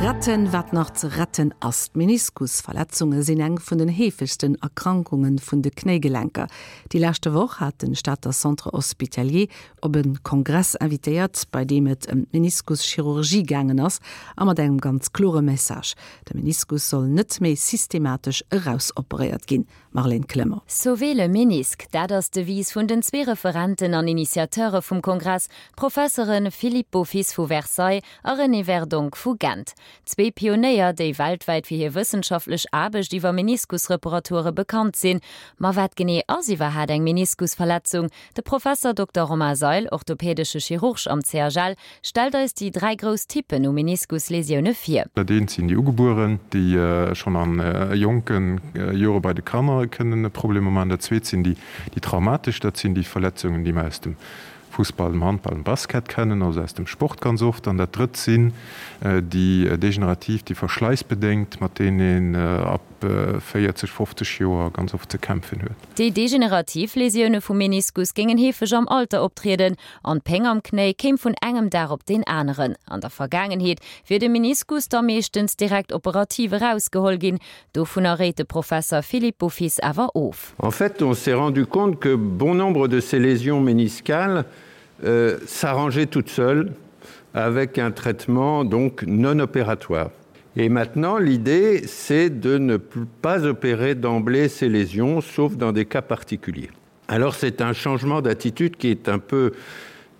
Retten, wat nach ze retten ass. D'Meniskusverletzunge sinn eng vun den heefegsten Erkrankunge vun de Knéigelenker. Déi leschte Woch hat de Stater Centre Hospitalier op e Kongress invitéiert, bei deem et ëm d'Meniskuschirurgie gaangen ass a mat engem ganz klore Message, De Meniskus soll net méi systematesch erausoperéiert ginn. Marlène Clement. Sauver le ménisque, dat ass d'Devise vun den zwee Referenten an Initiateure vum Kongress, d'Professere Philippe Beaufils vu Versailles a René Verdonk vu Gent. Zwee Pionéier, déi weltwäit fir hir wëssenschaftlech Aarbecht iwwer Meniskusreparature bekannt sinn. Ma wat genee ass iwwerhaat eng Meniskusverletzung? De Professer Dokter Romain Seil, orthopädesche Chirurg am CHL, stellt eis déi 3 grouss Typpen u Meniskuslesioune vir. Dat eent sinn déi ugebueren, déi schonn a jonke Jore bei de Kanner kënnen Problemer maachen. Dat zweet sinn déi traumatesch, dat sinn déi Verletzungen, déi mer aus dem Fussball, dem Handball, dem Basket kennen, also aus dem Sport ganz oft. An dat drëtt sinn déi degenerativ, déi verschläissbedéngt, mat deenen een ab 40, 50 Joer ganz oft ze kämpfen huet. Déi degenerativ Lesioune vum Meniskus géingen heefeg am Alter optrieden an d'Péng am Knéi kéim vun engem Dag op deen aneren. An der Vergaangenheet wier de Meniskus da meeschtens direkt operativ erausgeholl ginn. Dovunner réit de Professer Philippe Beaufils awer of. En fait, on s'est rendu compte que bon nombre de ces lésions méniscales euh, s'arrangeaient toutes seules avec un traitement donc non opératoire. Et maintenant, l'idée, c'est de ne pas opérer d'emblée ces lésions, sauf dans des cas particuliers. Alors c'est un changement d'attitude qui est un peu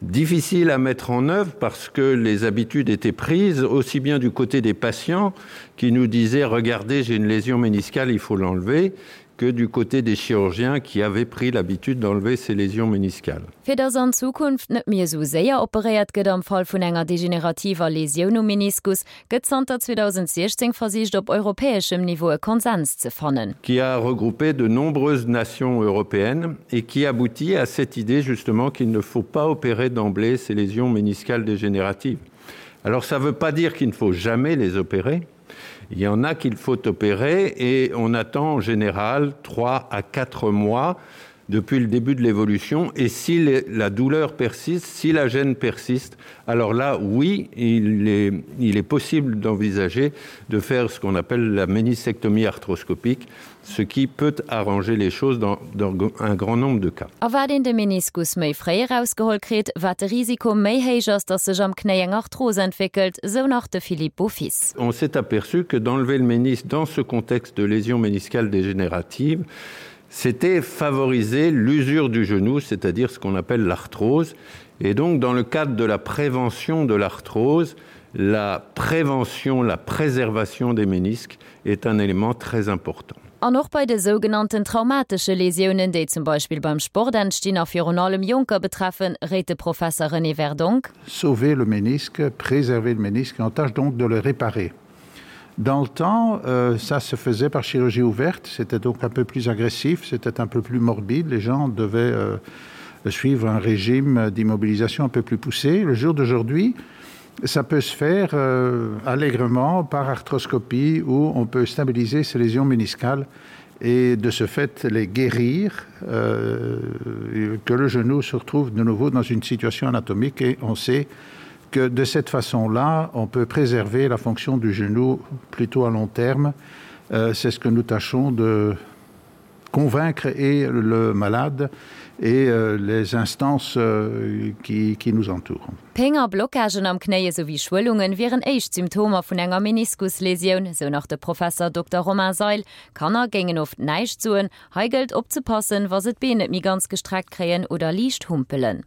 difficile à mettre en œuvre parce que les habitudes étaient prises aussi bien du côté des patients qui nous disaient regardez j'ai une lésion méniscale il faut l'enlever que du côté des chirurgiens qui avaient pris l'habitude d'enlever ces lésions méniscales. Fir dass an Zukunft net méi esou séier operéiert gëtt am Fall vun enger degenerativer Lesioun um Meniskus, gëtt zanter 2016 versicht op europäeschem Niveau e Konsens ze fannen. Qui a regroupé de nombreuses nations européennes et qui aboutit à cette idée justement qu'il ne faut pas opérer d'emblée ces lésions méniscales dégénératives. Alors ça veut pas dire qu'il ne faut jamais les opérer. Il y en a qu'il faut opérer et on attend en général 3 à 4 mois depuis le début de l'évolution et si les, la douleur persiste, si la gêne persiste, alors là oui, il est, il est possible d'envisager de faire ce qu'on appelle la ménisectomie arthroscopique, ce qui peut arranger les choses dans, dans un grand nombre de cas. A wat een de Meniskus méi fréi erausgeholl kritt, wat de Risiko méi héich ass, datt sech am Knéi eng Arthros entwéckelt, sou nach de Philippe Beaufils. On s'est aperçu que d'enlever le ménisque dans ce contexte de lésion méniscale dégénérative, c'était favoriser l'usure du genou, c'est-à-dire ce qu'on appelle l'arthrose. Et donc dans le cadre de la prévention de l'arthrose, la prévention, la préservation des ménisques est un élément très important. An och bei de sougenannten traumatesche Lesiounen, déi zum Beispill beim Sport entstinn a virun allem Jonker betreffen, réit de Professer René Verdonk. Sauver le ménisque, préserver le ménisque et on tâche donc de le réparer. Dans le temps, euh, ça se faisait par chirurgie ouverte, c'était donc un peu plus agressif, c'était un peu plus morbide, les gens devaient euh, suivre un régime d'immobilisation un peu plus poussé. Le jour d'aujourd'hui, ça peut se faire euh, allègrement par arthroscopie où on peut stabiliser ces lésions méniscales et de ce fait les guérir, euh, que le genou se retrouve de nouveau dans une situation anatomique et on sait que de cette façon-là, on peut préserver la fonction du genou plutôt à long terme. Euh, C'est ce que nous tâchons de convaincre et le malade et euh, les instances euh, qui, qui nous entourent. Péng a Blockagen am Knéi esou wéi Schwëllungen wieren éischt Symptomer vun enger Meniskuslesioun, sou nach de Professer Dokter Romain Seil. Kanner géingen oft näischt soen. Hei gëllt opzepassen, wa se d'Been net méi ganz gestreckt kréien oder liicht humpelen.